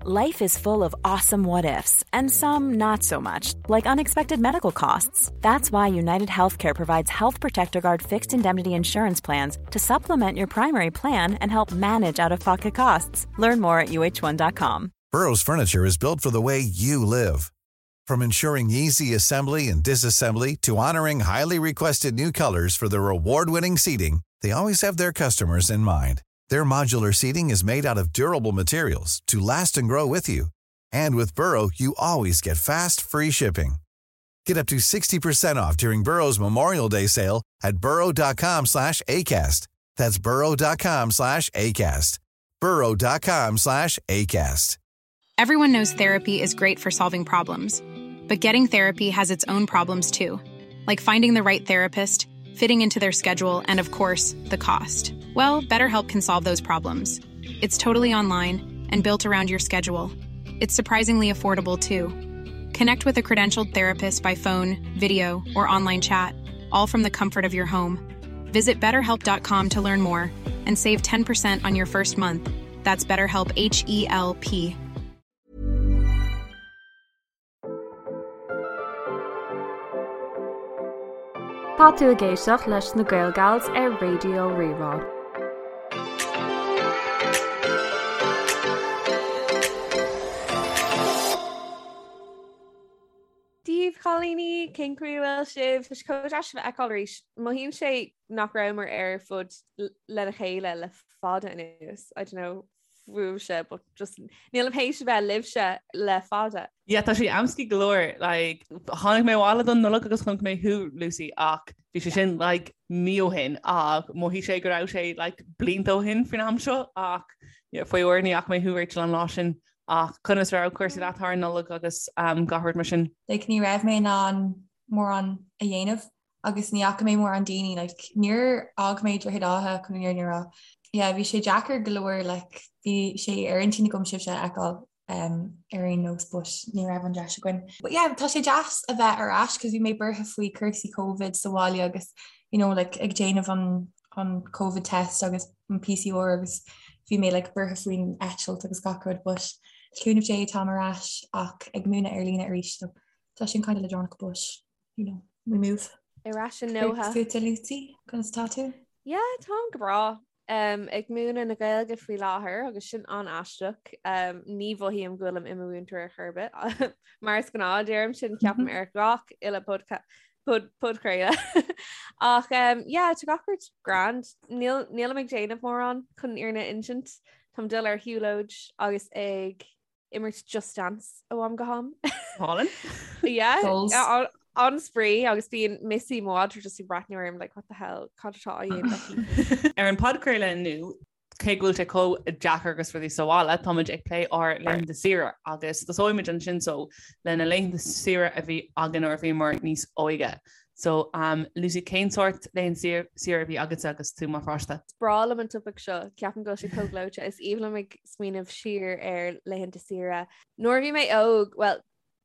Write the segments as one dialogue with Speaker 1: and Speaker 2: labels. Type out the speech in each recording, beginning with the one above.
Speaker 1: Life is full of awesome what ifs, and some not so much, like unexpected medical costs. That's why United Healthcare provides Health Protector Guard fixed indemnity insurance plans to supplement your primary plan and help manage out of pocket costs. Learn more at uh1.com.
Speaker 2: Burrow's furniture is built for the way you live. From ensuring easy assembly and disassembly to honoring highly requested new colors for their award-winning seating, they always have their customers in mind. Their modular seating is made out of durable materials to last and grow with you. And with Burrow, you always get fast, free shipping. Get up to 60% off during Burrow's Memorial Day sale at burrow.com slash ACAST. That's burrow.com slash ACAST. burrow.com slash ACAST.
Speaker 3: Everyone knows therapy is great for solving problems, but getting therapy has its own problems too, like finding the right therapist, fitting into their schedule, and of course, the cost. Well, BetterHelp can solve those problems. It's totally online and built around your schedule. It's surprisingly affordable too. Connect with a credentialed therapist by phone, video, or online chat, all from the comfort of your home. Visit betterhelp.com to learn more and save 10% on your first month. That's BetterHelp H E L P.
Speaker 4: Tá tú ag éisteacht leis na Gaelgals ar Raidió Rí-Rá.
Speaker 5: Dia daoibh, a chailíní, cén chaoi a bhfuil sibh? Tá sé chomh deas sibh a fheiceáil arís. Mothaíonn sé nach rabhamar ar fud lena chéile le fada anuas. I don't know fúibhse but just nílim théis a bheith libhse le fada.
Speaker 6: Yeah, tá sé amscaí go leor, like, tháinig mé abhaile don Nollaig agus chonaic mé thú, Lucy, ach bhí sé sin like, mí ó shin ach mhothaigh sé go raibh sé like, blianta ó shin faoin am seo ach yeah, faoi uair ní fhaca mé thú Rachel an lá sin ach conas raibh cúrsaí leat thar an Nollaig agus um, gach rud mar sin?
Speaker 7: Like, ní raibh mé in ann mórán a dhéanamh agus ní fhaca mé mórán daoine like níor fhág mé Droichead Átha chun an fhírinne a rá. Yeah, bhí sé deacair go leor like bhí sé ar intinn agam sibhse a fheiceáil um, ar aon nós but ní raibh an deis againn. But yeah, tá sé deas a bheith ar ais cos bhí mé buartha faoi cúrsaí Covid sa bhaile agus you know like ag déanamh an an Covid test agus an PCR agus bhí mé like buartha faoin eitilt agus gach rud but le cúnamh Dé táim ar ais ach ag múineadh ar líne arís so tá sin kind of leadránach but you know, we move.
Speaker 5: Ar ais i nDoha.
Speaker 7: Fútsa Lucy, conas tá tú?
Speaker 5: Yeah, táim go breá. Um, ag múineadh na Gaeilge faoi láthair agus sin an-aisteach. Um, ní mhothaím go bhfuilim i mo mhúinteoir ar chor ar bith. Mar is gnáth deirim sin ceapaim ar gach uile podchraoladh. Ach um, yeah, tá gach rud grand. Níl, nílim ag déanamh mórán chun an fhírinne a insint. Táim dul ar shiúlóid agus ag imirt Just Dance ó am go ham.
Speaker 6: Hálainn?
Speaker 5: Yeah, an-spraoi agus bíonn Missy mo mhadra just ag breathnú orm like what the hell cad atá á dhéanamh
Speaker 6: aici. Ar an podchraoladh inniu, cé go bhfuil sé chomh deacair agus rudaí sa bhaile, táimid ag plé ár laethanta saoire agus tosóimid ansin so le na laethanta saoire a bhí againn nuair a bhíomar níos óige. So, um, Lucy, cén sórt laethanta saoire a bhí agatsa agus tú mar pháiste?
Speaker 5: Is breá liom an topaic seo, ceapaim go bhfuil sé chomh gleoite. Is aoibhinn liom ag smaoineamh siar ar laethanta saoire. Nuair a bhí mé óg, well,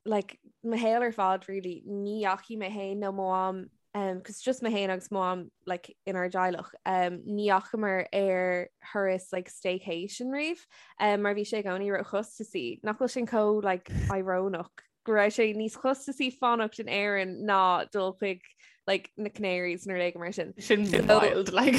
Speaker 5: like, mo shaol ar fad, really, ní dheachaigh mé féin nó mo mham, um, cos just mé féin agus mo mham, like, inár dteaghlach, um, ní dheachamar ar thuras, like, staycation riamh, um, mar bhí sé i gcónaí róchostasaí. Nach bhfuil sin chomh, like, íorónach? go raibh sé níos costasaí fanacht in Éirinn ná dul chuig like, na Canaries nó rud éigin mar sin.
Speaker 6: Sin wild, like.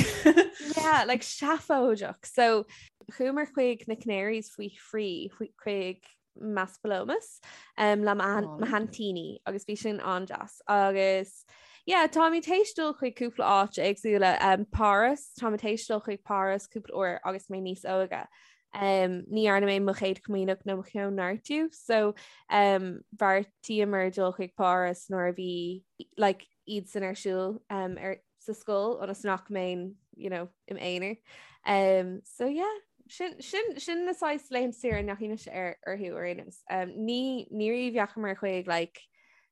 Speaker 5: Yeah, like seafóideach. So chuamar chuig na Canaries faoi thrí chuig Maspalomas um, le mo haintíní agus bhí sin an-deas. Agus yeah, táimid théis dul chuig cúpla áit éagsúla um, Páras, táimid théis dul chuig Páras cúpla uair agus mé níos óige. Um, ní dhearna mé mo chéad chomaoineach nó mo chóineartú, so um, bheartaíomar dul chuig Páras nuair a bhí like, iad san ar siúl um, ar, sa scoil ionas nach mbeinn you know, im aonar. Um, so yeah, sin, sin, sin na saghas laethanta saoire a ndeachaigh mise ar orthu ar aon nós. Um, ní ní riamh dheachamar chuig like,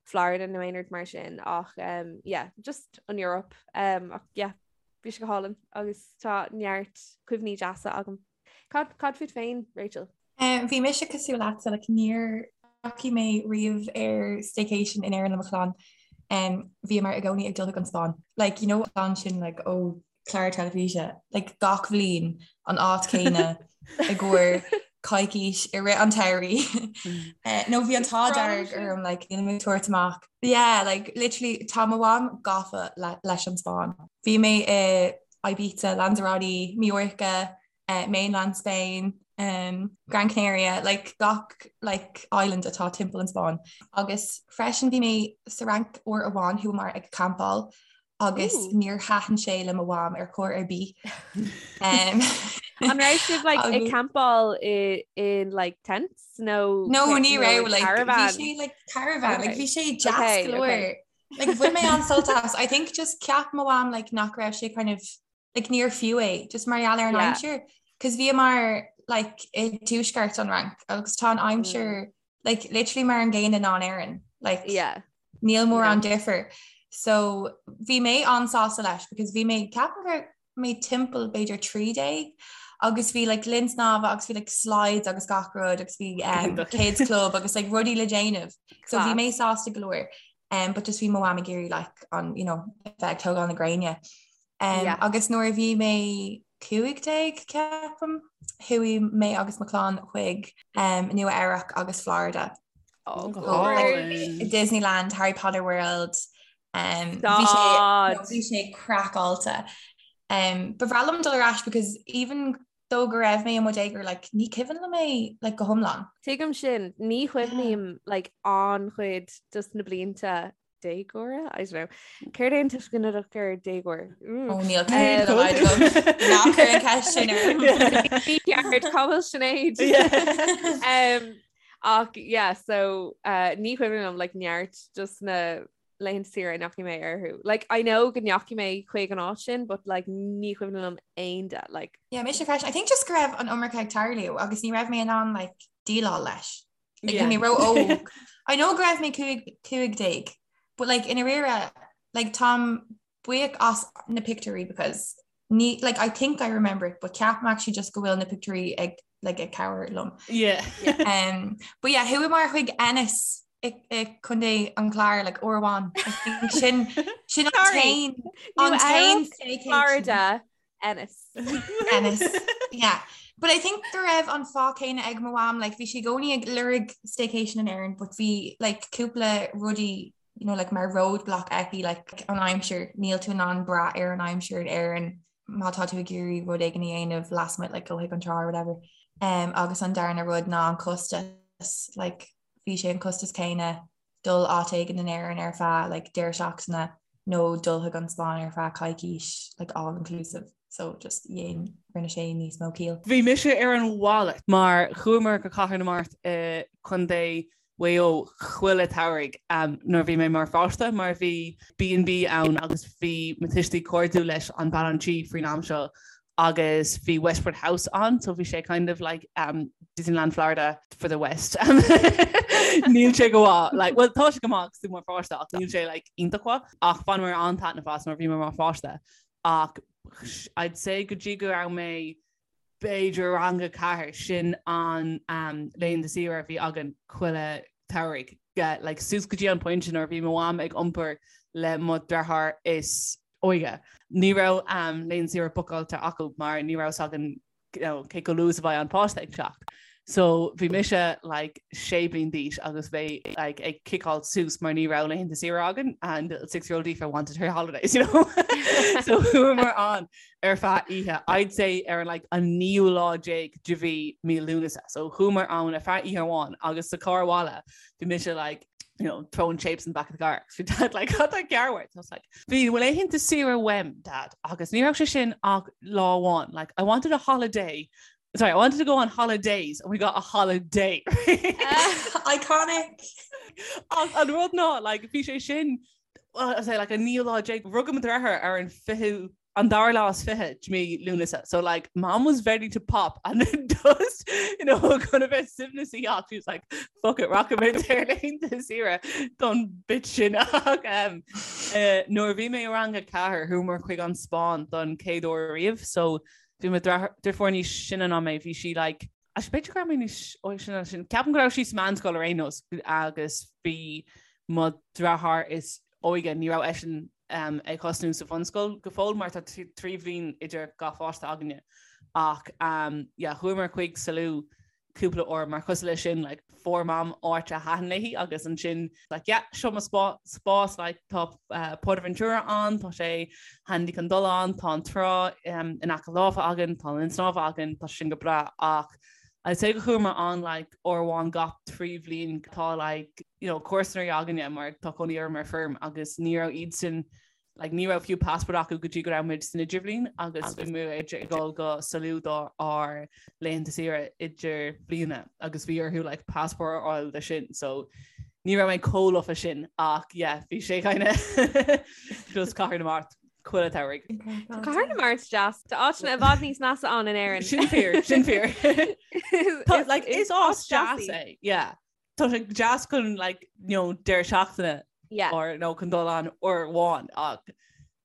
Speaker 5: Florida nó aon rud mar sin ach um, yeah, just an Europe um, ach yeah, Bhí sé go hálainn agus tá neart cuimhní deasa agam. Cad cad fút féin, Rachel?
Speaker 7: Um, bhí mise cosúil leatsa, like, níor dheachaigh mé riamh ar staycation in Éirinn le mo chlann. Um, bhíomar i gcónaí ag dul chuig an Spáinn. Like, you know, an sin like, ó chlár teilifíse, like, gach bhliain an áit céanna i gcomhair. coicís i rith an tsamhraidh. Eh, nó bhí an t-ádh dearg orm like, níl mé ag tabhairt amach. Yeah, like, literally tá mo mham gafa le, leis an Spáinn. Bhí mé i Ibiza, Lanzarote, Mallorca, eh, mainland Spain, um, Gran Canaria, like, gach like, island atá timpeall an Spáinn. Agus freisin bhí mé sa Fhrainc uair amháin chuamar ag campáil agus níor thaitin sé le mo mham ar chor ar bith.
Speaker 5: Um, An raibh sibh like, ag campáil i in like tents nó
Speaker 7: No ní raibh like caravan. Bhí sé like caravan like bhí sé deas go leor. Like bhain mé an-sult as. I think just ceap mo mham like nach raibh sé kind of like níor fiú é just mar gheall ar an aimsir. Cos bhíomar like i dtuaisceart an Fhrainc agus tá an aimsir mm. like literally mar an gcéanna ná in Éirinn. Like
Speaker 5: yeah.
Speaker 7: Níl mórán difear. So bhí mé an-sásta leis because bhí mé ceapaim go raibh mé timpeall b'fhéidir 13 agus bhí like linn snámha agus bhí like slides agus gach rud agus bhí um, kids club agus like rudaí le déanamh. So bhí mé sásta go leor. Um, but just bhí mo mham ag iarraidh like an you know, bheith ag tógáil na gréine. Um, yeah. Agus nuair a bhí mé 15 ceapaim, chuaigh mé agus mo chlann chuig um, Nua Eabhrac agus Florida.
Speaker 5: Oh,
Speaker 7: like, Disneyland, Harry Potter World. Um, bhí sé craiceáilte. Um, ba bhreá liom dul ar ais because even though go raibh mé i mo dhéagóir like, ní cuimhin liom é like, go hiomlán.
Speaker 5: Tuigim sin ní chuimhním like, an-chuid dos na blianta déagóra? I don't know. Céard é an tuisceanadach ar déagóir?
Speaker 7: Ó níl Ná cuir an ceist sin orm.
Speaker 5: Ceart cá bhfuil Sinéad. Um, ach yeah, so uh, ní chuimhin liom like, neart dos na laethanta saoire a ndeachaigh mé orthu. Like, I know go ndeachaigh mé chuig an áit sin, but like, ní chuimhin liom aon de. Like,
Speaker 7: Yeah, mise freisin. I think just go raibh an iomarca ag tarlú agus ní raibh mé in ann like, déileáil leis. Like, bhí mé ró-óg. I know go raibh mé 15, but like i ndáiríre, like táim buíoch as na pictiúirí because ní, like I think I remember it, but ceapaim actually just go bhfuil na pictiúirí ag like ag cabhair liom.
Speaker 6: Yeah.
Speaker 7: Um, but yeah, chuamar chuig Ennis i, i Contae an Chláir like uair amháin. I think sin sin an
Speaker 5: Sorry.
Speaker 7: t-aon an t-aon staycation.
Speaker 5: Florida Ennis.
Speaker 7: Ennis. Yeah. But I think go raibh an fáth céanna ag mo mham, like, bhí sí i gcónaí ag lorg staycation in Éirinn, but bhí like, cúpla rudaí you know, like, mar roadblock aici like, an aimsir, níl tú in ann brath ar an aimsir in Éirinn má tá tú ag iarraidh rud éigin a dhéanamh lasmuigh like, go chuig an trá or whatever. Um, agus an darna rud ná an costas, like, bhí sé an costas céanna dul áit éigin in Éirinn ar feadh like deireadh seachtaine nó dul chuig an Spáinn ar feadh coicís like all inclusive so just dhein rinne sé níos mó ciall.
Speaker 6: Bhí mise ar an mhalairt mar chuamar go Cathair na Mart i Contae Mhaigh Eo chuile shamhradh nuair a bhí mé mar pháiste mar bhí B&B ann agus bhí mo tuistí cairdiúil leis an bean an tí faoin am seo agus bhí Westward House ann so bhí sé kind of like um, Disneyland Florida for the West. Níl sé go maith like, well tá sé go maith agus tú mar pháiste ach níl sé like, iontach mhaith ach bhaineamar an-taitneamh as mar bhí mé mar pháiste ach I'd say go dtí go raibh mé b'fhéidir rang a 4 sin an um, laethanta saoire a bhí againn chuile shamhradh like, suas go dtí an pointe nuair a bhí mo mham ag iompar le mo dheartháir is óige. Ní raibh laethanta saoire bookáilte acu mar ní raibh a fhios againn cé chomh luath is a bheidh an páiste ag teacht. So bhí mise like sé bliain d'aois agus bheith like ag ciceáil suas mar ní raibh laethanta saoire againn and little six year old Aoife wanted her holidays, you know? So chuamar ann ar feadh oíche, I'd say ar an like an naoú lá déag de mhí mí Lúnasa. So chuamar ann ar feadh oíche amháin agus sa carr abhaile bhí mise like you know, throwing shapes in the back of the car. Bhí dad like, cad tá cearr uait? I was like, bhí laethanta saoire uaim, dad, agus ní raibh sé sin ach lá amháin. Like, I wanted a holiday. Sorry, I wanted to go on holidays and we got a holiday.
Speaker 7: Iconic!
Speaker 6: Ach an rud ná, like, bhí sé sin, well, I say, like, an naoú lá déag, rugadh mo dheartháir ar an fichiú an dara lá is fiche de mí Lúnasa. So like mom was ready to pop and then just you know chun a bheith suaimhneasach she was like fuck it rachaidh muid ar laethanta saoire don bit sin ach um, uh, nuair a bhí mé i rang a 4 chuamar chuig an Spáinn don chéad uair riamh so bhí mo deirfiúr níos sine ná mé bhí sí like Actually, b'fhéidir go raibh mé níos óige sin ná sin. Ceapaim go raibh sí sa meánscoil ar aon nós agus bhí mo dheartháir is óige, ní raibh eisean um, ag tosnú sa bhunscoil go fóill mar tá 3 bhliain idir gach pháiste againne. Ach um, yeah, chuamar chuig Salou. cúpla uair mar cosúil leis sin like fuair Mam áit a thaitin léi agus ansin like yeah seo mo spás like tá uh, Portaventura ann, tá sé handy chun dul ann, tá an trá um, in aice láimhe againn, tá an linn snámha againn, tá sin go breá ach I'd say go chuamar ann like uair amháin gach 3 bhliain tá like you know comharsana againne mar tá cónaí orm ar feirm agus ní raibh iad sin like ní raibh fiú passport acu go dtí go raibh muid san idirbhliain agus bhí muid ag dul go Salou do ár laethanta saoire idirbhliana agus bhí orthu like passport a fháil de sin so ní raibh mé chomh lofa sin ach yeah bhí sé kind of just Cathair na Mart chuile shamhradh.
Speaker 5: Tá Cathair na Mart deas. Tá áiteanna i bhfad níos measa ann in Éirinn.
Speaker 6: Sin fíor, sin fíor. Like is áit deas é, yeah. Tá sé deas chun like, you know, deireadh seachtaine
Speaker 5: yeah.
Speaker 6: or no chun dul ann uair amháin ach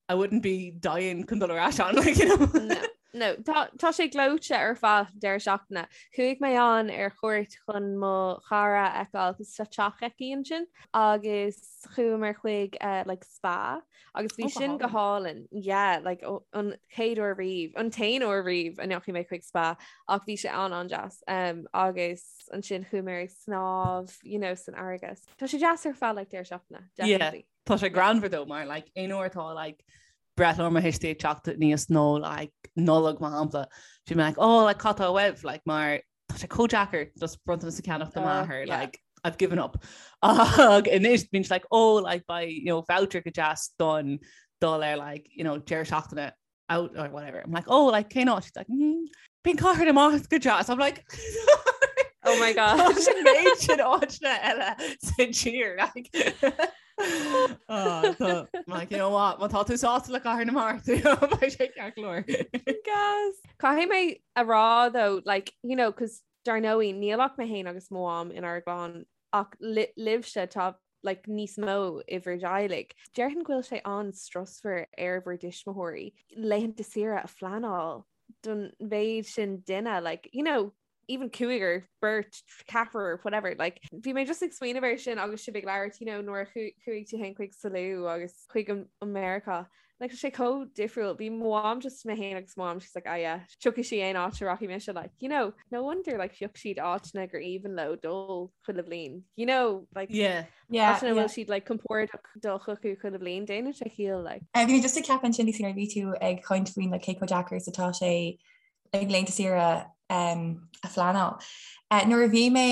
Speaker 6: I wouldn't be dying chun dul ar ais ann like, you know.
Speaker 5: No. No, tá, tá sé gleoite ar feadh deireadh seachtaine. Chuaigh mé ann ar chuairt chun mo chara a fheiceáil cos tá teach aici ansin agus chuamar chuig uh, like spa Agus bhí sin go hálainn, yeah, like, an chéad uair riamh, an t-aon uair riamh a ndeachaigh mé chuig spa, ach bhí sé an-an-deas. Um, agus ansin chuaigh mé ag snámh, you know, san fharraige. Tá sé deas ar feadh like, deireadh seachtaine,
Speaker 6: definitely. Yeah, tá sé greannmhar though mar like, aon uair atá like, breithlá mo thuistí ag teacht aníos nó like, Nollaig mar shampla, bhí mé like, oh, like, cad tá uaibh, like, mar tá sé chomh deacair just bronntanas a cheannach do m'athair like I've given up. Ach anois bíonn like oh like beidh you know voucher go deas don dul ar like you know deireadh seachtaine out or whatever. I'm like oh like cén áit? She's like mm, bíonn Cathair na Mart go deas. I'm like
Speaker 5: Oh my
Speaker 6: gosh. Sin méid sin áiteanna eile sa tír like Oh, tá- like, you know what, má tá tú sásta le Cathair na Mart, you know, beidh sé ceart go leor.
Speaker 5: Gas. Caithfidh mé a rá though, like, you know, cos dar ndóigh níl ach mé féin agus mo mham inár gclann ach libhse tá like, níos mó i bhur dteaghlaigh. Déarfainn go bhfuil sé an-strusmhar ar bhur dtuismitheoirí laethanta saoire a phleanáil don mhéid sin duine, like, you know, even cúigear, beirt, ceathrar, whatever, like, bhí mé just ag smaoineamh air sin agus sibh ag labhairt, you know, nuair a chuaigh tú féin chuig Salou agus chuig an Meiriceá. Like, tá sé chomh difriúil. Bhí mo mham just mé féin agus mo mham, she's like, ah yeah, tiocfaidh sí aon áit a rachaidh mise, like, you know, no wonder, like, phioc siad áiteanna gur aoibhinn leo dul chuile bhliain, you know, like,
Speaker 6: yeah.
Speaker 7: Yeah,
Speaker 5: áiteanna a bhfuil siad, like, compordach dul chucu chuile bhliain, déanann sé ciall, like.
Speaker 7: Bhí mé just ag ceapadh ansin nuair a bhí tú ag caint faoin like, cé chomh deacair is atá sé like laethanta saoire a phleanáil. Nuair a bhí mé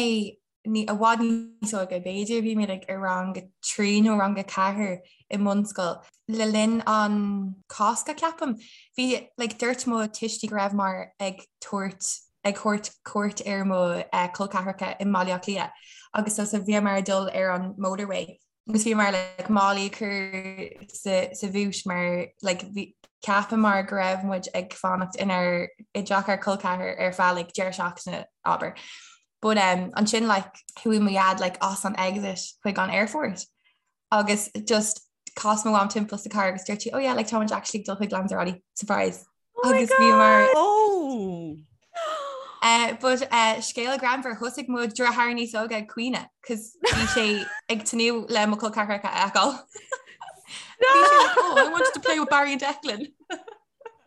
Speaker 7: i bhfad níos óige, b'fhéidir bhí mé like i rang a 3 nó rang a 4 i mbunscoil, le linn an Cásca ceapaim, bhí like dúirt mo tuistí go rabhamar ag tabhairt ag thabhairt cuairt ar mo col ceathracha i mBaile Átha Cliath agus so so bhíomar ag dul ar an motorway agus bhíomar like málaí a chur sa sa bhúit mar like bhí cheapamar go raibh muid ag fanacht inár i dteach ár col ceathar ar feadh like deireadh seachtaine abair. But um, ansin like chuaigh mo dhaid like as an exit chuig an airport agus just chas mo mham timpeall sa car agus dúirt sí oh yeah like tá muid actually ag dul chuig Lanzarote surprise.
Speaker 5: Oh my
Speaker 7: Agus bhíomar
Speaker 5: God!
Speaker 6: Oh!
Speaker 7: Uh, but uh, scéal greannmhar thosaigh mo dheartháir níos óige ag caoineadh, cos bhí sé ag tnúth le mo chol ceathracha a fheiceáil. Bhí sé like, oh, I wanted to play with Barry and Declan.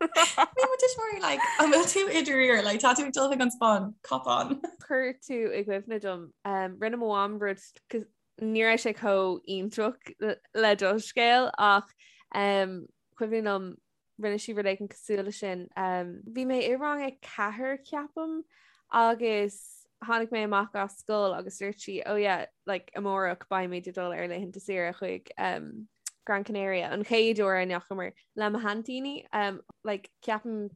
Speaker 7: Bhí mo tuismitheoirí like, an bhfuil tú i ndáiríre, like, tá tú ag dul chuig an Spáinn, cop on.
Speaker 5: Chuir tú i gcuimhne dom, um, rinne mo mham rud cos ní raibh sé chomh iontach le do scéal ach um, cuimhin liom rinne sí rud éigin cosúil leis sin. Bhí mé i rang a ceathair ceapaim agus tháinig mé amach as scoil agus dúirt sí oh yeah like amárach beimid ag dul ar laethanta saoire chuig um, Gran Canaria an chéad uair a ndeachamar le mo haintíní um, like ceapaim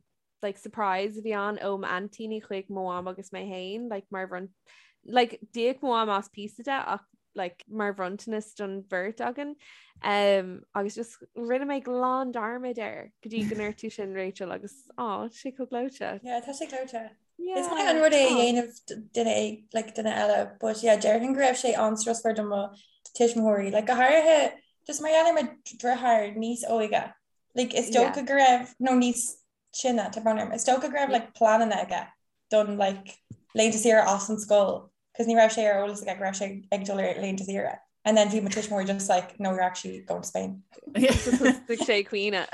Speaker 5: like surprise a bhí ann ó m'aintíní chuig mo mham agus mé féin like mar bhron like d'íoc mo mham as píosa de ach like mar bhronntanas don bheirt againn um, agus just rinne mé glan dearmad air go dtí go ndúirt tú sin Rachel agus á tá sé chomh gleoite.
Speaker 8: Yeah, tá sé gleoite.
Speaker 5: Yeah.
Speaker 8: Is maith an rud é a dhéanamh duine like, duine eile, but yeah, déarfainn go raibh sé an-strusmhar do mo tuismitheoirí, like, go háirithe just mar gheall ar mo dheartháir níos óige. Like, is dócha go raibh nó níos sine, tá brón orm, is dócha go raibh like, pleananna aige don like, laethanta saoire as an scoil cos ní raibh sé ar eolas aige go raibh sé ag dul ar laethanta saoire. And then bhí mo tuismitheoirí just like, no, you're actually going to Spain.
Speaker 5: Thosaigh sé ag caoineadh.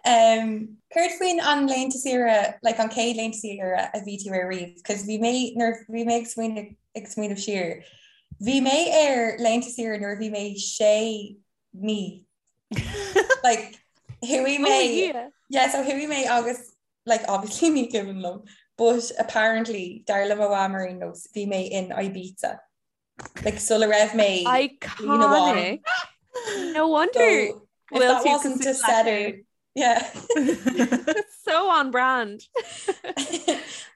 Speaker 7: Um, céard faoin an laethanta saoire, like an chéad laethanta saoire a bhí tú ar riamh, cos bhí mé nuair bhí mé ag smaoineamh ag smaoineamh siar. Bhí mé ar laethanta saoire nuair a bhí mé sé mí. Like chuaigh mé
Speaker 5: Oh, yeah.
Speaker 7: Yeah, so chuaigh mé agus like obviously ní cuimhin liom, but apparently dar le mo mham ar aon nós bhí mé in Ibiza. Like sula raibh mé
Speaker 5: Iconic. No wonder
Speaker 7: so, if that wasn't a setter yeah.
Speaker 5: So on brand.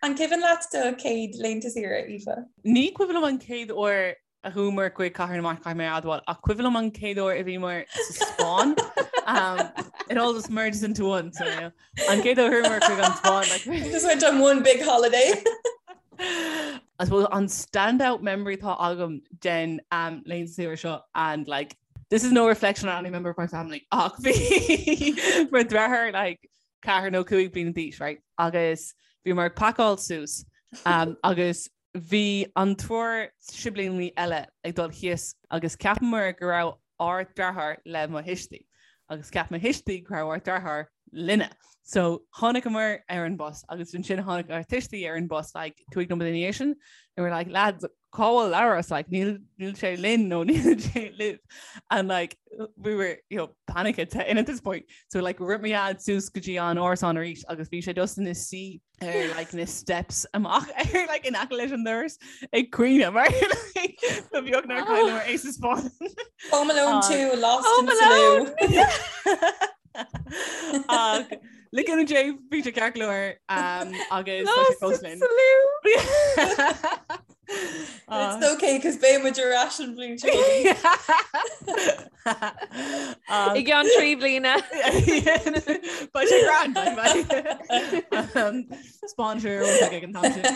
Speaker 7: An cuimhin leat do chéad laethanta saoire, Aoife?
Speaker 6: Ní cuimhin liom an chéad uair a chuamar chuig Cathair na Mart caithfidh mé a admháil ach cuimhin liom an chéad uair a bhíomar sa Spáinn. Um, it all just merges into one. So, yeah. An chéad uair a chuamar chuig an Spáinn.
Speaker 7: Like, just went on one big holiday.
Speaker 6: I suppose an standout memory atá agam den um, laethanta saoire seo and like this is no reflection on any member of my family ach bhí mo dheartháir like ceathair nó cúig bliana d'aois right agus bhíomar ag pacáil suas um, agus Bhí an triúr siblíní eile ag dul thíos agus cheapamar go raibh ár deartháir le mo thuistí agus cheap mo thuistí go raibh ár deartháir linne. So tháinigeamar ar an bus agus ansin tháinig ár tuistí ar an bus like 5 nóiméad ina dhiaidh sin and we were like lads cá bhfuil Labhrás like níl níl sé linn nó níl sé libh and like we were you know panic at in at this point so like rith mo dhaid suas go dtí an árasán arís agus bhí sé just ina suí ar like na steps amach ar like in aice leis an doras ag caoineadh mar like ba bheag nár chailleamar é sa Spáinn.
Speaker 7: Home Alone 2 Lost
Speaker 5: Home
Speaker 7: in Salou.
Speaker 6: Ach le cúnamh Dé bhí sé ceart go leor um, agus tá sé
Speaker 5: Lost
Speaker 6: fós
Speaker 5: in
Speaker 6: linn.
Speaker 5: Salou.
Speaker 7: It's okay cos beidh muid ar ais an bhliain seo.
Speaker 5: I gceann 3 bliana.
Speaker 6: Beidh sé grand Sponsor ag an t-am sin.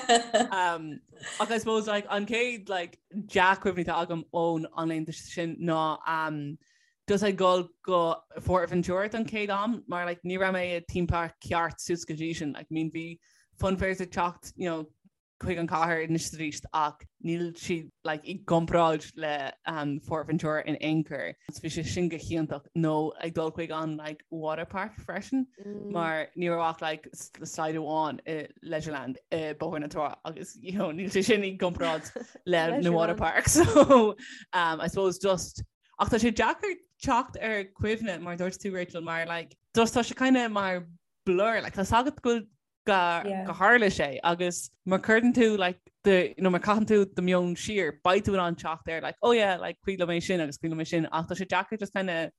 Speaker 6: Ach I suppose like an chéad like dea-chuimhne atá agam ón an laethanta sin ná um, just ag dul go Fuerteventura don chéad am mar like ní raibh mé i theme park ceart suas go dtí sin like I mean bhí funfairs ag teacht you know chuig an chathair anois is arís ach níl siad like i gcomparáid le um, Fuerteventura in aon chor. So bhí sé sin go hiontach nó ag dul chuig an like water park freisin mm. mar ní raibh ach like slide amháin i Leisureland i Bóthar na Trá agus you know, níl sé sin i gcomparáid le na water park so um, I suppose just ach tá sé deacair teacht ar cuimhne mar dúirt tú Rachel mar like just tá sé kind of mar blur like tá a fhios agat go bhfuil go tharla sé agus má chuireann tú like do you know má caitheann tú do meon siar beidh tú in ann teacht ar like oh yeah like cuimhin liom é sin agus cuimhin liom é sin ach tá sé deacair just kind of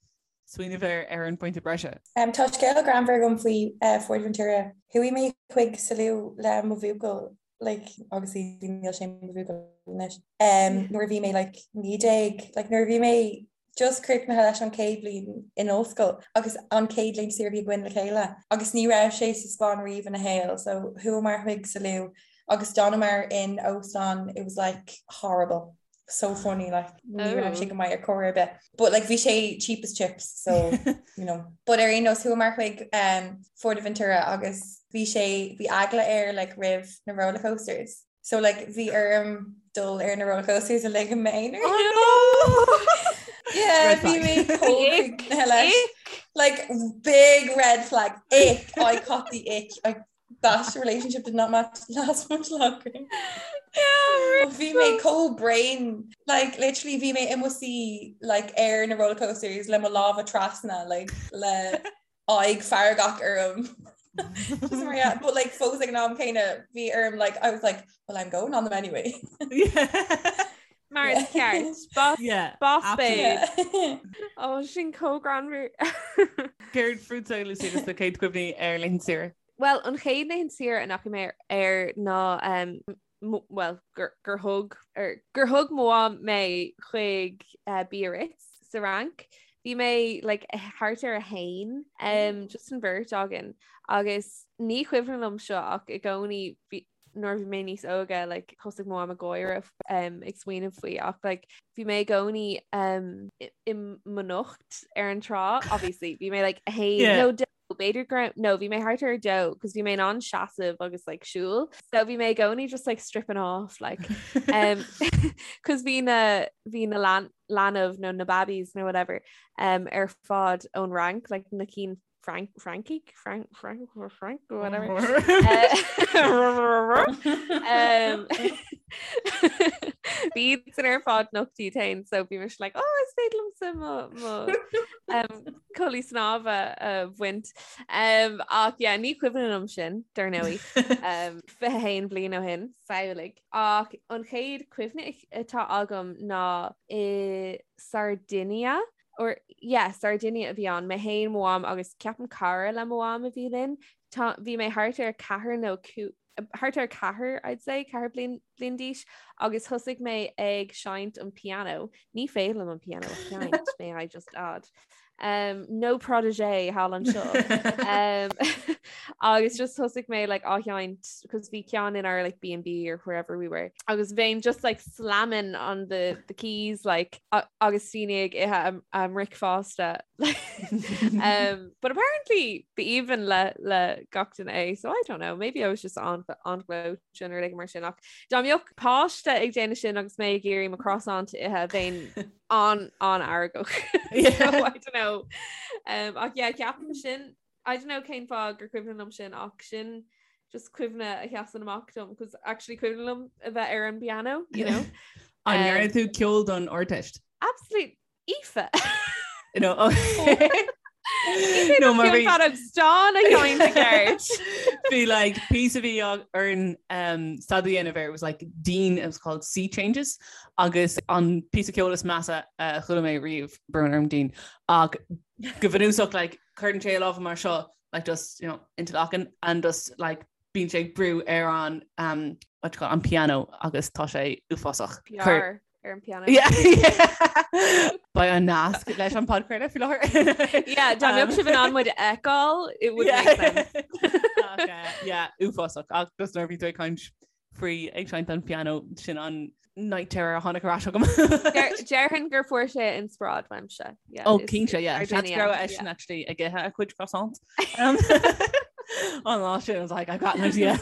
Speaker 6: smaoineamh ar ar an phointe breise.
Speaker 7: Um, tá scéal greannmhar agam faoi uh, Fuerteventura. Chuaigh mé chuig Salou le mo bhuachaill like, obviously níl sé mo bhuachaill anois. Um, nuair a bhí mé like, 19, like, nuair a bhí mé just críochnaithe leis an chéad bhliain in ollscoil agus an chéad laethanta saoire a bhí againn le chéile agus ní raibh sé sa Spáinn riamh ina shaol so chuamar chuig Salou agus d'fhanamar in óstán it was like horrible so funny like ní raibh sé go maith ar chor ar bith but like bhí sé cheap as chips so you know but ar aon nós chuamar chuig um, Fuerteventura agus bhí sé bhí eagla air like roimh na roller coasters So like bhí orm dul ar na roller coasters uilig i m'aonar.
Speaker 5: Oh no!
Speaker 7: Yeah,
Speaker 6: Red
Speaker 7: bhí
Speaker 6: flag.
Speaker 7: mé chomh críochnaithe leis. Like big red flag. Ick. I caught the ick. I, that relationship did not match, last much longer.
Speaker 5: Yeah,
Speaker 7: But bhí mé chomh bréan. Like literally bhí mé i mo suí like ar na roller coasters le mo lámha trasna like le aghaidh feargach orm. Just mar yeah, but like fós ag an am céanna bhí orm like I was like well I'm going on them anyway.
Speaker 5: Mar is ceart. Boss,
Speaker 6: Yeah,
Speaker 5: boss babe.
Speaker 7: Yeah.
Speaker 5: Ó sin chomh greannmhar.
Speaker 6: Céard fútsa Lucy agus do chéad chuimhní ar laethanta saoire?
Speaker 5: Well, an chéad laethanta saoire a ndeachaigh mé ar ná um, bhuel, gur thug, gur thug mo mham mé chuig Biarritz sa Fhrainc. Bhí mé like thart ar a haon, um, just an bheirt againn agus ní cuimhin liom seo ach i gcónaí nuair bhí mé níos óige like thosaigh mo mham ag gáire um, ag smaoineamh faoi ach like bhí mé i gcónaí um, i mo nocht ar an trá obviously bhí mé like a haon
Speaker 6: Yeah.
Speaker 5: nó b'fhéidir go raibh, no, bhí mé thart ar a dó, cos bhí mé in ann seasamh agus like siúl. So bhí mé i gcónaí just like stripping off like um, cos bhí na bhí na lean, leanbh nó na babbies nó whatever um, ar fad ón Fhrainc, like na cinn Frank Frankie Frank Frank Frank whatever um, Bhí san ar fad nocht iad féin so bhí mise like oh is féidir liomsa mo mo um, culaith snámha a bhaint um, ach yeah, ní cuimhin liom sin dar ndóigh um, 21 bliain ó shin samhlaigh ach an chéad cuimhne atá agam ná i Sardinia or yeah, Sardinia a bhí ann, mé féin, mo mham agus ceapaim cara le mo mham a bhí linn. Tá, bhí mé thart ar ceathair nó thart ar ceathair, I'd say, ceathair bliain, bliain d'aois agus thosaigh mé ag seinnt an piano. Ní féidir liom an piano a sheinnt, may I just add. Um, no protégé thall anseo. um, agus just thosaigh mé like, á sheinnt, cos bhí ceann in our like, B&B or wherever we were. Agus bheinn just like slamming on the, the keys like agus daoine ag ithe a mbricfeasta. um, but apparently b'aoibhinn le le gach duine é, so I don't know, maybe I was just on on gleoite nó rud mar sin ach dá mbeadh páiste ag déanamh sin agus mé ag iarraidh mo croissant a ithe bheinn an an-fheargach. so I don't know. Um, ach yeah, ceapaim sin I don't know cén fáth gur cuimhin liom sin ach sin just cuimhne a sheasann amach dom cos actually cuimhin liom a bheith ar an piano, you know.
Speaker 6: An ndearna tú ceol don Ardteist?
Speaker 5: Absolute Aoife.
Speaker 6: No, okay.
Speaker 5: No, mar bhí stán a sheinn i gceart.
Speaker 6: Bhí like píosa a bhí orainn um, staidéar a dhéanamh air, it was like Dean, it was called Sea Changes agus an píosa ceoil is measa a chuala mé riamh, brón orm Dean, ach go bunúsach like cuireann sé a lámha mar seo like just you know interlocking and just like bíonn sé ag brú ar an um, what you call it, an piano agus tá sé uafásach.
Speaker 5: Cuir- ar an piano.
Speaker 6: Yeah, yeah. Beidh an nasc leis an podchraoladh faoi
Speaker 5: láthair. Yeah, dá mbeadh sibh in ann muid a fheiceáil, it would make sense.
Speaker 6: Ach, eh, yeah, uafásach ach just nuair a bhí tú ag caint faoi ag seinnt an piano sin an night terror a tháinig ar ais agam.
Speaker 5: Déarfainn gur fuair sé inspioráid uaimse.
Speaker 6: Ó cinnte yeah. Seans go raibh eisean actually ag ithe a chuid croissant. Um, an lá sin I was like I've got an idea.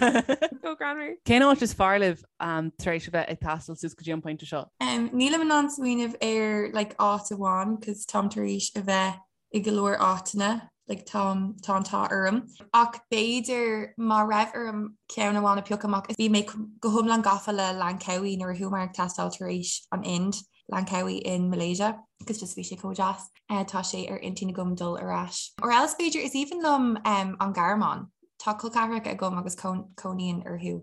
Speaker 5: Go greannmhar.
Speaker 6: Cén áit is fearr libh um, tar éis a bheith ag taisteal suas go dtí an pointe seo?
Speaker 7: Um, nílim in ann smaoineamh ar like, áit amháin, cos táim tar éis a bheith i go leor áiteanna, like, tá tá an t-ádh orm. Ach b'fhéidir má raibh orm ceann amháin a phiocadh amach, bhí mé go hiomlán gafa le Langkawi nuair a chuamar ag taisteal tar éis an Ind, Langkawi in Malaysia, cos just bhí sé chomh deas. Uh, tá sé ar intinn agam dul ar ais. Or else b'fhéidir is aoibhinn liom um, an Ghearmáin. Tá col ceathracha agam agus cónaíonn orthu.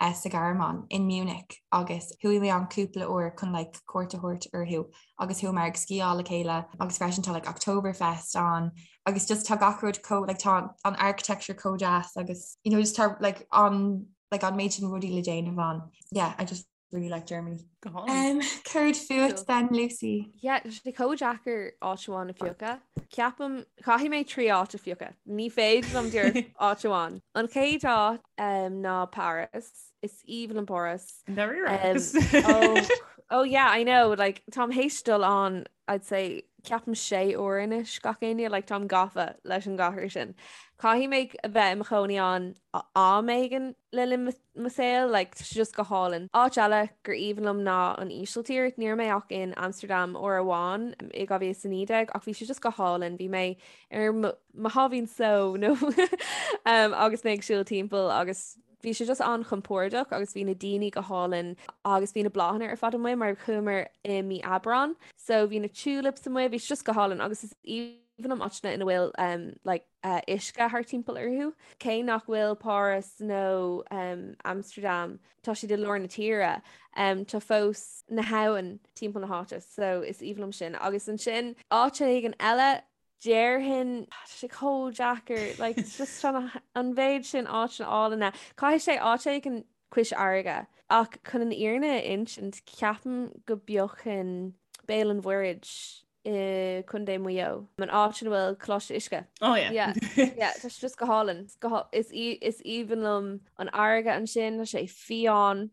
Speaker 7: sa Ghearmáin, in Munich, agus chuaigh mé ann cúpla uair chun like cuairt a thabhairt orthu agus chuamar ag sciáil le chéile agus freisin tá like Oktoberfest ann agus just tá gach rud chomh like tá an architecture chomh deas agus you know just tá like an like an méid sin rudaí le déanamh ann. Yeah, I just really like Germany.
Speaker 6: Go hálainn.
Speaker 7: Um, céard fút then, Lucy?
Speaker 5: Yeah, tá sé chomh deacair áit amháin a phiocadh. Ceapaim, caithfidh mé 3 áit a phiocadh. Ní féidir liom díreach áit amháin. An chéad áit um, ná Paris. Is aoibhinn liom Páras.
Speaker 6: Um,
Speaker 5: oh, oh yeah, I know. Like, táim théis dul ann, I'd say, ceapaim sé uair anois gach éinne, like, táim gafa leis an gcathair sin. Caithfidh mé a bheith i mo chónaí ann am éigin le linn mo saol, like, tá sé just go hálainn. Áit eile gur aoibhinn liom ná an Ísiltír. Ní raibh mé ach in Amsterdam uair amháin i 2019 ach bhí sé just go hálainn. Bhí mé ar mo sháimhín só nó um, agus mé ag siúl timpeall agus bhí sé just an-chompordach agus bhí na daoine go hálainn agus bhí na bláthanna ar fad amuigh mar chuamar i mí Aibreán. So bhí na tulips amuigh, bhí sé just go hálainn agus is aoibhinn liom áiteanna ina bhfuil um, like, uisce thart timpeall orthu. Cé nach bhfuil Páras nó Amsterdam, tá siad i lár na tíre, tá fós na habhann timpeall na háite, so is aoibhinn liom sin. Agus ansin áit éigin eile, déarfainn, tá sé chomh deacair, like it's just an mhéid sin áiteanna álainne. Caithfidh sé áit éigin cois fharraige. Ach chun an fhírinne a insint, ceapaim go bpiocfainn Béal an Mhuirthead i Contae Mhaigh Eo, an áit ina bhfuil Coláiste Uisce.
Speaker 6: Oh yeah.
Speaker 5: Yeah, yeah, tá sé just go hálainn. Is is aoibhinn liom an fharraige ansin, tá sé fiáin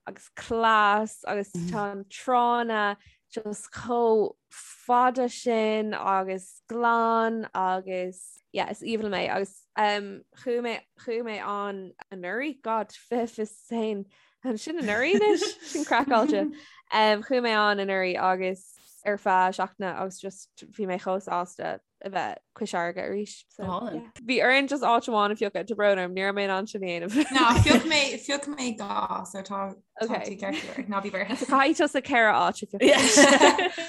Speaker 5: agus glas agus tá an tránna just chomh fada sin agus glan agus yeah, is aoibhinn liom é agus um, chuaigh mé chuaigh mé ann anuraidh, God, 2021 Sin anuraidh anois, sin craiceáilte. Um, chuaigh mé ann anuraidh agus ar feadh seachtaine agus just bhí mé chomh sásta. a bheith Cois Fharraige arís. So, yeah. Bhí orainn just áit amháin a phiocadh tá brón orm, ní raibh mé in ann sin a dhéanamh.
Speaker 7: Ná phioc mé phioc mé dhá so tá tú ceart ná bí buartha.
Speaker 5: So caithfidh tusa ceithre áit a phiocadh.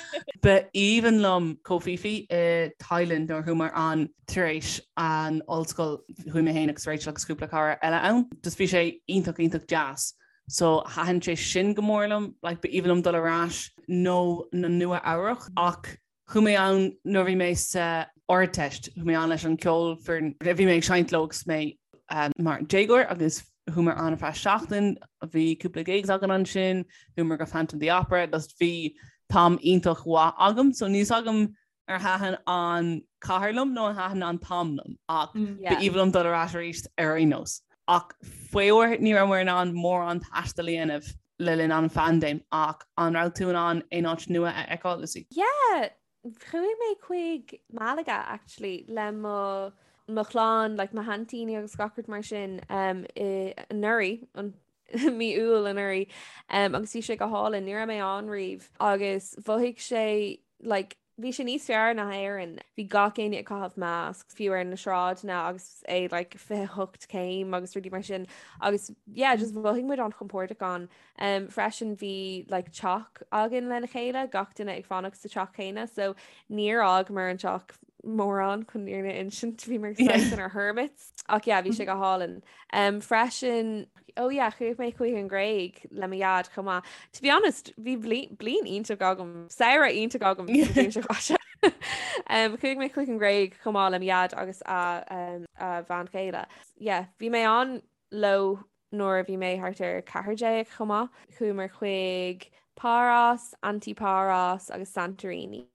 Speaker 6: Ba aoibhinn liom Koh Phi Phi i Thailand nuair a chuamar ann tar éis an ollscoil chuaigh mé féin agus Rachel agus cúpla cara eile ann. Just bhí sé iontach iontach deas. So thaitin sé sin go mór liom, like ba aoibhinn liom dul ar ais nó na Nua Eabhrach ach Chuaigh mé ann nuair a bhí mé sa Ardteist, chuaigh mé ann leis an ceolfhoireann a bhí mé ag seinnt leo agus mé mar déagóir agus chuamar ann ar feadh seachtain, bhí cúpla gigs againn ansin, chuamar go Phantom of the Opera, just bhí t-am iontach mhaith agam, so níl 's agam ar thaitin an cathair liom nó ar thaitin an t-am liom ach ba aoibhinn liom dul ar ais arís ar aon nós. Ach faraor ní rabhamar in ann mórán taistil a dhéanamh le linn an phaindéim ach an raibh tú in ann aon áit nua a fheiceáil, Lucy?
Speaker 5: Yeah, chuaigh mé chuig Malaga actually le mo mo chlann, like mo haintíní agus gach rud mar sin um, i anuraidh, an mí Iúil anuraidh um, agus bhí sé go hálainn, ní raibh mé ann riamh agus mhothaigh sé like Bhí sé níos fearr ná Éirinn. Bhí gach éinne ag caitheamh masks, fiú ar na sráideanna agus é like 28 céim agus rudaí mar sin. Agus yeah, just mhothaigh muid an-chompordach ann. Um, freisin bhí like teach againn lena chéile, gach duine ag fanacht sa teach céanna, so níor fhágamar an teach mórán chun an fhírinne a insint, bhíomar saghas inár hermits. Ach yeah, bhí sé go hálainn. Um, freisin, Oh yeah, chuaigh mé chuig an Ghréig le mo dhaid chomh maith. To be honest, bhí bliain iontach agam, samhradh iontach agam sa bhliain seo caite. Um, chuaigh mé chuig an Ghréig chomh maith le mo dhaid agus a, um, a bhean chéile. Yeah, bhí mé ann leo nuair a bhí mé thart ar 14 chomh maith. Chuamar chuig Paros, Antiparos agus Santorini.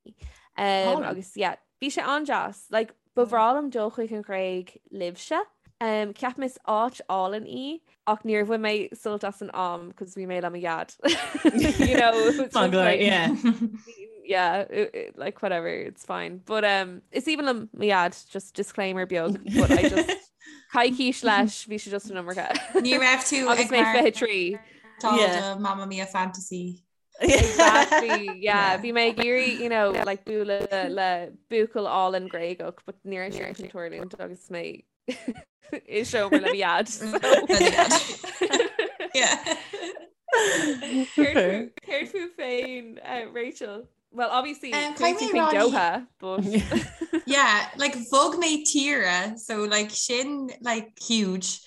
Speaker 5: Um, agus yeah, Bhí sé an-deas. Like, ba bhreá liom dul chuig an Ghréig libhse. Um, ceapaim is áit álainn í, ach níor bhain mé sult as an am cos bhí mé le mo dhaid. You know, it was just like,
Speaker 6: yeah.
Speaker 5: yeah, it, it, like whatever, it's fine. But um, is aoibhinn liom mo dhaid, just disclaimer beag, but I just coicís leis, bhí sé just an iomarca.
Speaker 7: Ní raibh tú
Speaker 5: Agus mé 23.
Speaker 7: Tá Mamma Mia fantasy.
Speaker 5: Exactly, yeah. Bhí mé ag iarraidh, you know, like bualadh le buachaill álainn Gréagach, but ní raibh sé sin ag tarlúint agus mé i seomra le mo dhaid.
Speaker 7: Yeah.
Speaker 5: Céard fút féin, uh, Rachel? Well, obviously, um, chuaigh tú chuig Doha, but...
Speaker 7: Yeah, like bhog mé tíre, so like sin like huge.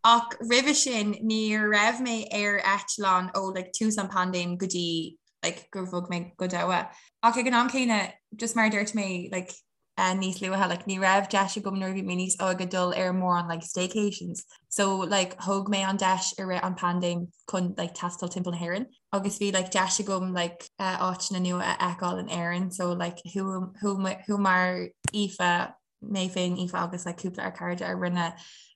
Speaker 7: Ach roimhe sin ní raibh mé ar eitleán ó like tús an paindéim go dtí like gur bhog mé go Doha. Ach ag an am céanna, just mar a dúirt mé like uh, níos luaithe, like ní raibh deis agam nuair a bhí mé níos óige dul ar mórán like staycations. So like thóg mé an deis i rith an paindéim chun like taisteal timpeall na hÉireann. Agus bhí like deis agam like uh, áiteanna nua a fheiceáil in Éirinn, so like chuamar Aoife mé féin Aoife agus like cúpla ár cairde a rinne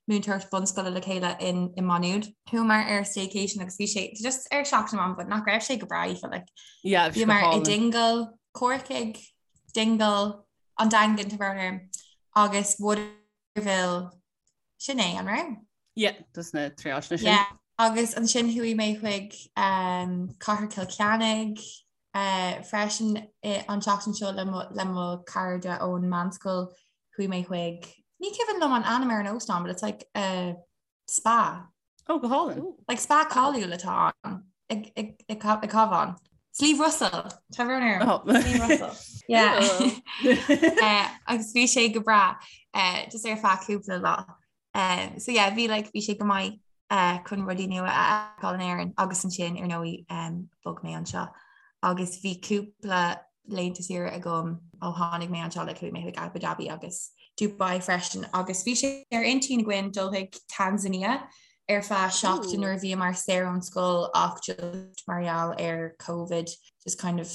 Speaker 7: múinteoireacht bunscoile le chéile in i Maigh Nuad. Chuamar ar staycation agus bhí sé just ar seachtain amháin but nach raibh sé go breá Aoife like
Speaker 6: Yeah, bhí sé go
Speaker 7: bhíomar i
Speaker 6: hálainn.
Speaker 7: Dingle, Corcaigh, Dingle, an Daingean tá brón orm, agus Waterville sin é an raibh?
Speaker 6: Yeah, just na trí áiteanna sin.
Speaker 7: Yeah, agus ansin chuaigh mé chuig um, Cathair Chill Chainnigh, Freisin an tseachtain seo le mo chairde ón meánscoil chuaigh mé chuig, ní cuimhin liom an ainm ar an óstán but it's like a spa.
Speaker 6: Oh, go hálainn.
Speaker 7: Like spa cáiliúil atá ann ag ag Cabhán. Sliabh Russell tá brón orm.
Speaker 6: Oh.
Speaker 7: Sliabh Russell. Yeah. Agus bhí sé go breá just ar feadh cúpla lá. Um, so yeah, bhí like, bhí sé go maith uh, chun rudaí nua a fheiceáil in Éirinn agus ansin ar ndóigh um, bhog mé anseo. Agus bhí cúpla laethanta saoire agam ó tháinig mé anseo like chuaigh mé chuig Abu Dhabi agus Dubai freisin agus bhí sé ar intinn againn dul chuig Tanzania ar feadh seachtain nuair a bhíomar saor ón scoil ach just mar gheall ar COVID just kind of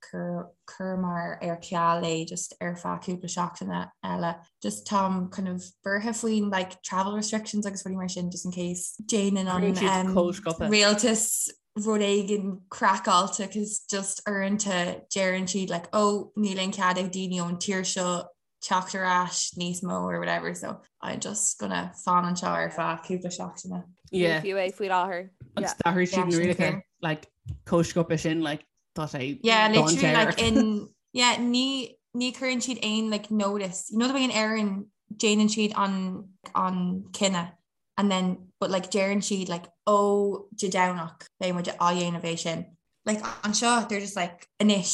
Speaker 7: chuireamar ar ceal é just ar feadh cúpla seachtaine eile. Just táim kind of buartha faoin like travel restrictions agus rudaí mar sin just in case déanann an um, rialtas rud éigin craiceáilte cos just uaireanta deireann siad like oh níl aon cead ag daoine ón tír seo teacht ar ais níos mó or whatever so I'm just gonna fan anseo ar feadh cúpla seachtaine.
Speaker 6: Yeah.
Speaker 5: Fiú é faoi láthair.
Speaker 6: Agus d'athraigh siad na rialacha like chomh sciobtha sin like tá sé
Speaker 7: Yeah, literally like in yeah ní ní chuireann siad aon like notice. You know the way in Éirinn déanann siad an an cinneadh and then but like deireann siad like ó Dé Domhnach beidh muid á dhéanamh é sin. Like anseo they're just like anois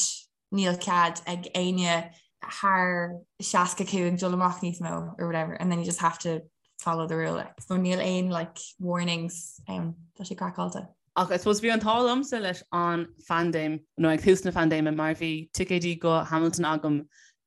Speaker 7: níl cead ag éinne thar 65 dul amach níos mó or whatever and then you just have to follow the rule. Like. So níl aon like warnings um, tá sé craiceáilte.
Speaker 6: Ach I suppose bhí an t-ádh liomsa leis an phaindéim, nó ag tús na paindéime, mar bhí ticéidí go Hamilton agam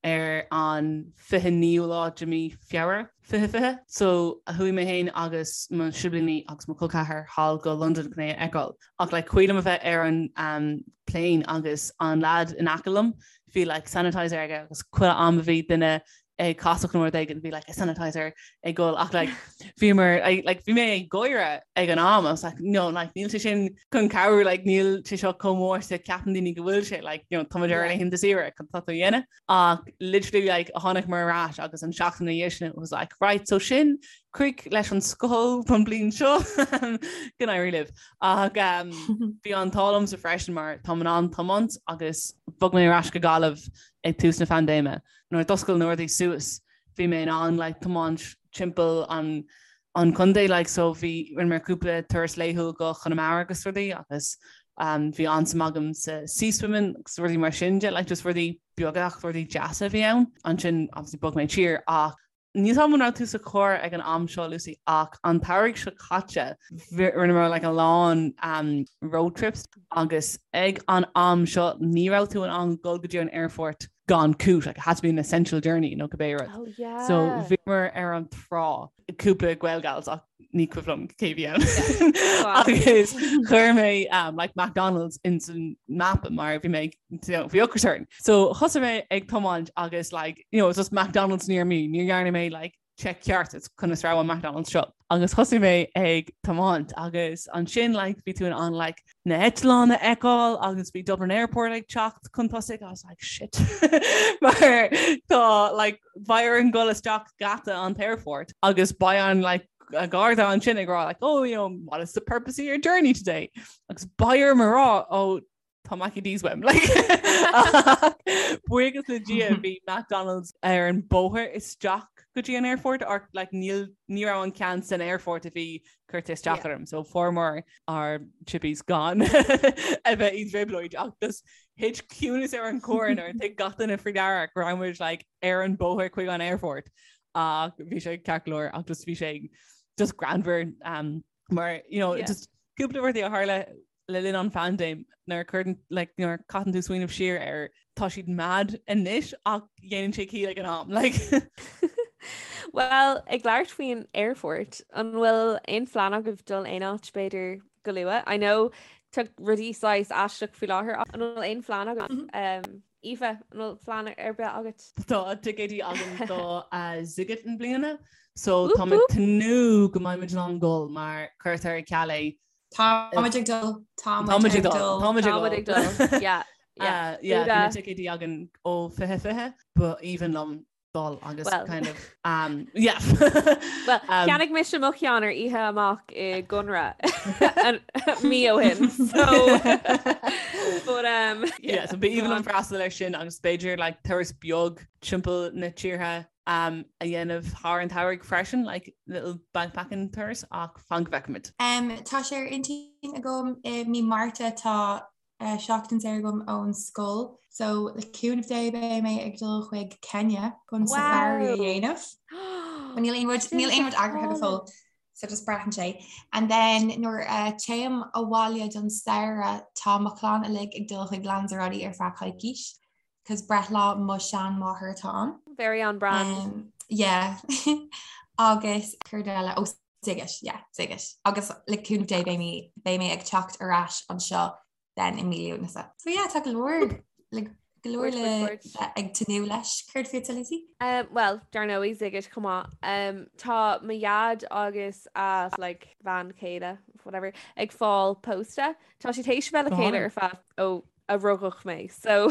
Speaker 6: ar an 29ú lá de mí Feabhra 2020. So chuaigh mé féin agus mo siblíní agus mo chol ceathar thall go Londain chun é a fheiceáil. Ach like cuimhin liom a bheith ar an um, plane agus an lad in aice liom, bhí like sanitizer aige agus chuile am a bhí duine ag casacht nó rud éigin bhí like a sanitizer ag gol ach like bhí mar like bhí mé ag gáire ag an am I was like no like níl sé sin chun cabhrú like níl sé seo chomh mór is a ceapann daoine go bhfuil sé like you know tá muid ar laethanta saoire cad tá tú a dhéanamh ach literally like tháinig muid ar ais agus an seachtain ina dhiaidh sin it was like right so sin crích leis an scoil don bliain seo go n-éirí libh ach um, bhí an t-ádh liomsa freisin mar táim in ann tiomáint agus bhog mé ar ais go Gaillimh ag tús na phaindéime nuair a d'oscail na rudaí suas bhí mé in ann like tiomáint timpeall an an contae like so bhí rinne mé cúpla turas laethúil go Conamara agus rudaí agus um, bhí an-suim agam sa sea swimming agus rudaí mar sin de like just rudaí beaga ach rudaí deasa a bhí ann. Ansin obviously bhog mé tír ach Níl a fhios agam an raibh tú sa charr ag an am seo, Lucy, ach an t-earrach seo caite, rinneamar like a lán um, road trips agus ag an am seo ní raibh tú in ann dul go dtí an airport gan cúis, like it had to be an essential journey nó cibé rud.
Speaker 5: Oh, yeah.
Speaker 6: So bhíomar ar an trá cúpla Gaelgals ach ní cuimhin liom cé bhí ann. Agus chuir mé um, like McDonald's in san map mar bhí mé you know, bhí ocras orm. So thosaigh mé ag tiomáint agus like, you know, it's just McDonald's near me, ní dhearna mé like check ceart it's conas raibh an McDonald's seo. Agus thosaigh mé ag tiomáint agus ansin like, bhí tú in ann like, na heitleáin a fheiceáil agus bhí Dublin Airport ag teacht chun tosaigh I was like shit mar tá like beidh orainn dul isteach geata an airport agus beidh an like a garda ansin ag rá like oh you know what is the purpose of your journey today agus beidh orm a rá oh tá Mackey D's uaim like buíochas le Dia bhí McDonald's ar an bóthar isteach go dtí an airport or like níl ní raibh an ceann san airport a bhí curtha isteach orm so fuaireamar ár chippies gan a bheith i dtrioblóid ach just thit ciúnas ar an gcarr nuair a thuig gach duine faoi deara go raibh muid like ar an bóthar chuig an airport ach bhí sé ceart go leor ach just bhí sé just greannmhar um, mar you know yeah. just cúpla rudaí a tharla le linn an phaindéim nuair a chuireann like nuair a caitheann tú smaoineamh siar air tá siad mad anois ach dhéanann sé ciall ag an am like.
Speaker 5: Well, ag labhairt faoin airport, an bhfuil aon phlean agaibh dul aon áit b'fhéidir go luath? I know tá rudaí saghas aisteach faoi láthair ach an bhfuil aon phlean agaibh? Mm -hmm. um, Aoife, an bhfuil plean ar bith agat?
Speaker 6: Tá ticéidí agam do uh, Sziget i mbliana, so tá mé ag tnúth go mbeidh muid in ann dul mar cuirtear ar ceal é
Speaker 7: Táimid ag dul.
Speaker 6: Táimid ag dul.
Speaker 5: Táimid ag dul. Yeah.
Speaker 6: Yeah, yeah, bhí na ticéidí againn ó 2020, ba aoibhinn liom dul agus
Speaker 5: Well.
Speaker 6: kind of um, yeah.
Speaker 5: Well,
Speaker 6: Um,
Speaker 5: cheannaigh mise mo cheann ar oíche amach i gConradh an- mí ó shin. So, but, um,
Speaker 6: yeah, so ba aoibhinn liom freastal air sin agus b'fhéidir like turas beag timpeall na tíortha um, a dhéanamh thar an tsamhraidh freisin, like little backpacking turas ach fan go bhfeicfimid.
Speaker 7: Um, tá sé ar intinn agam i mí Márta tá uh, seachtain saor agam ón scoil, so le cúnamh Dé beidh mé ag dul chuig Kenya chun
Speaker 5: Wow.
Speaker 7: safari a dhéanamh. Well, Níl aon rud níl aon rud eagraithe go fóill, so just braitheann sé. And then nuair uh, téim abhaile don samhradh tá mo chlann uilig ag dul chuig Lanzarote ar feadh coicís. 'cause breithlá mo sheanmháthair atá ann.
Speaker 5: Very on brand.
Speaker 7: Um, yeah. Agus céard eile ó Sziget, yeah, Sziget. Agus le cúnamh Dé beidh mé beidh mé ag teacht ar ais anseo then i mí Lúnasa. So yeah, tá go leor le go leor
Speaker 5: Cuairt,
Speaker 7: le
Speaker 5: cuairt, cuairt.
Speaker 7: bheith ag tnúth leis. Céard fútsa Lucy?
Speaker 5: Um, well, dar ndóigh Sziget chomh maith. Um, tá mo dhaid agus a like, bhean chéile, whatever, ag fáil pósta. Tá siad théis bheith le
Speaker 6: Go
Speaker 5: chéile
Speaker 6: hálainn.
Speaker 5: ar feadh ó a rugadh mé so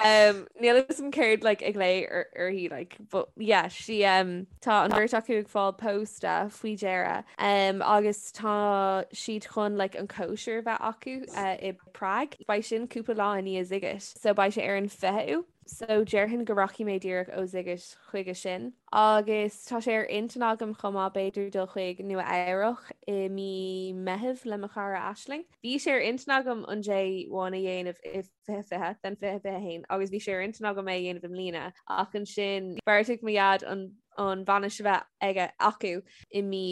Speaker 5: um, níl a fhios agam céard like, ag glao uirthi like, but yeah, she, um, tá an bheirt acu ag fáil pósta faoi dheireadh um, agus tá siad chun like, an cóisir bheith acu uh, i Prague. Beidh sin cúpla lá i ndiaidh Sziget so beidh sé ar an 20ú. So déarfainn go rachaidh mé díreach ó Sziget chuige sin. Agus tá sé ar intinn agam chomh maith b'fhéidir dul chuig Nua Eabhrach i mí Meitheamh le mo chara Aisling. Bhí sé ar intinn agam an J1 a dhéanamh i 2020 then 2021 agus bhí sé ar intinn agam é a dhéanamh i mbliana ach ansin bheartaigh mo dhaid an an bhainis a bheith aige acu i mí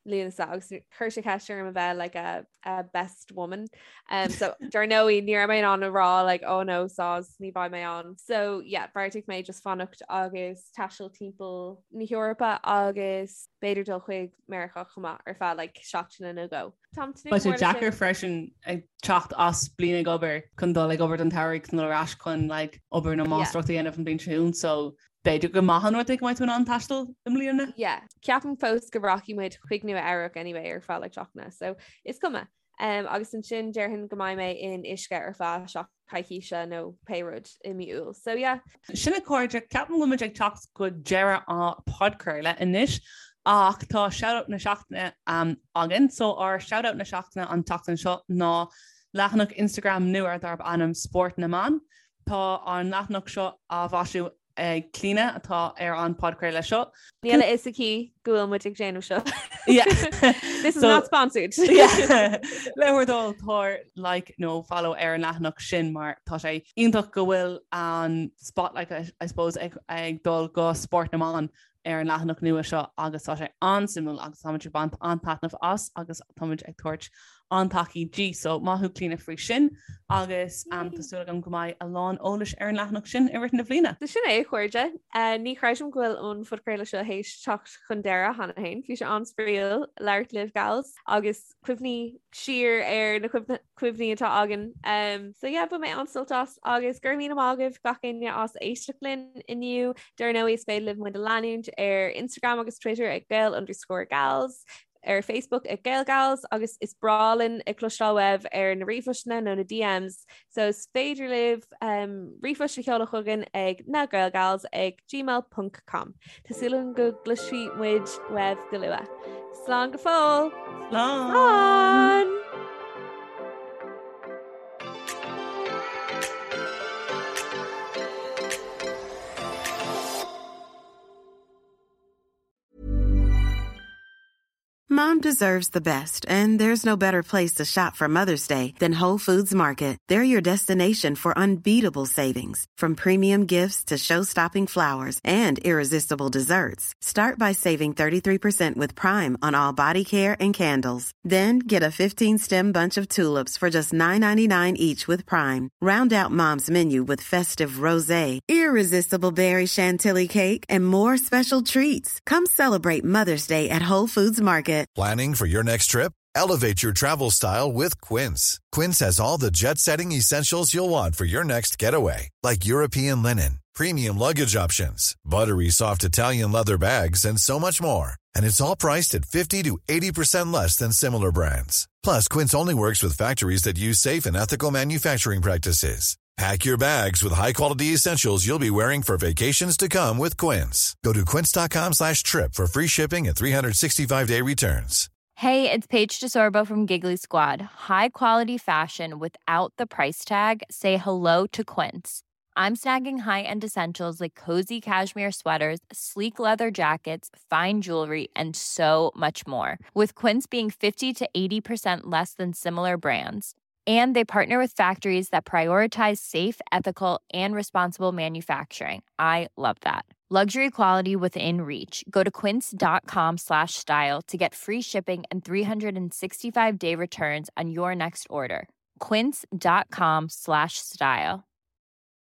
Speaker 5: Lúnasa agus chuir sé ceist orm a bheith like a, a best woman. Um, so dar ndóigh ní raibh mé in ann a rá like oh no soz ní bheidh mé ann. So yeah, bheartaigh mé just fanacht agus taisteal timpeall na hEorpa agus b'fhéidir dul chuig Meiriceá chomh maith ar feadh like seachtaine nó dhó. Táim
Speaker 6: tnúth Beidh sé mór leis deacair sin. freisin ag teacht as bliain ag obair chun dul ag obair don tsamhradh chun dul ar ais chun like obair nó máistreacht a dhéanamh an bhliain seo chugainn so B'fhéidir gur maith an rud é go mbeidh tú in ann taisteal i mbliana.
Speaker 5: Yeah, ceapaim fós go rachaidh muid chuig Nua Eabhrac anyway ar feadh like seachtaine, so is cuma. Um, agus ansin déarfainn go mbeidh mé in uisce ar feadh seach coicíse nó pé rud i mí Iúil. So yeah.
Speaker 6: Sin a chairde, ceapaim go bhfuil muid ag teacht go deireadh an podchraoladh anois ach tá shoutout na seachtaine um, againn. So ár shoutout na seachtaine an tseachtain seo ná leathanach Instagram nua darb ainm Spórt na mBan. Tá an leathanach seo á mhaisiú ag Clíona atá ar an podchraoladh seo.
Speaker 5: Níl a fhios aici go bhfuil muid ag déanamh seo. This is not sponsored.
Speaker 6: Le bhur dtoil tabhair like nó follow ar an leathanach sin mar tá sé iontach go bhfuil an spotlight I suppose ag dul go spórt na mban ar an leathanach nua seo agus tá sé an-suimiúil agus táimid ag baint an-taitneamh as agus táimid ag tabhairt an-tacaíocht di. So maith thú Clíona faoi sin agus um, tá súil agam go mbeidh a lán eolais ar an leathanach sin i rith na bliana.
Speaker 5: So sin é a chairde. Uh, ní chreidim go bhfuil an phodchraoladh seo théis teacht chun deireadh cheana féin. Bhí sé an-spraíúil labhairt libh gals agus cuimhní siar ar na cuimhní atá againn. Um, so yeah, bhain mé an-sult as agus go raibh míle maith agaibh gach éinne as éisteacht linn inniu. Dar ndóigh is féidir libh muid a leanúint ar Instagram agus Twitter ag Gael underscore gals, ar Facebook ag GaelGals agus is breá linn ag cloisteáil uaibh ar na ríomhphostanna nó na DMs. So is féidir libh um, ríomhphost a sheoladh chugainn ag nagaelgals ag gmail.com. Tá súil agam go gcloisfidh muid uaibh go luath. Slán go fóill!
Speaker 6: Slán! Slán!
Speaker 9: Mom deserves the best, and there's no better place to shop for Mother's Day than Whole Foods Market. They're your destination for unbeatable savings, from premium gifts to show-stopping flowers and irresistible desserts. Start by saving 33% with Prime on all body care and candles. Then get a 15-stem bunch of tulips for just $9.99 each with Prime. Round out Mom's menu with festive rosé, irresistible berry chantilly cake, and more special treats. Come celebrate Mother's Day at Whole Foods Market.
Speaker 2: Planning for your next trip? Elevate your travel style with Quince. Quince has all the jet setting essentials you'll want for your next getaway, like European linen, premium luggage options, buttery soft Italian leather bags, and so much more. And it's all priced at 50 to 80% less than similar brands. Plus, Quince only works with factories that use safe and ethical manufacturing practices. Pack your bags with high-quality essentials you'll be wearing for vacations to come with Quince. Go to quince.com slash trip for free shipping and 365-day returns.
Speaker 10: Hey, it's Paige DeSorbo from Giggly Squad. High quality fashion without the price tag. Say hello to Quince. I'm snagging high-end essentials like cozy cashmere sweaters, sleek leather jackets, fine jewelry, and so much more. With Quince being 50 to 80% less than similar brands. And they partner with factories that prioritize safe, ethical, and responsible manufacturing. I love that. Luxury quality within reach. Go to quince.com slash style to get free shipping and 365 day returns on your next order. Quince.com slash style.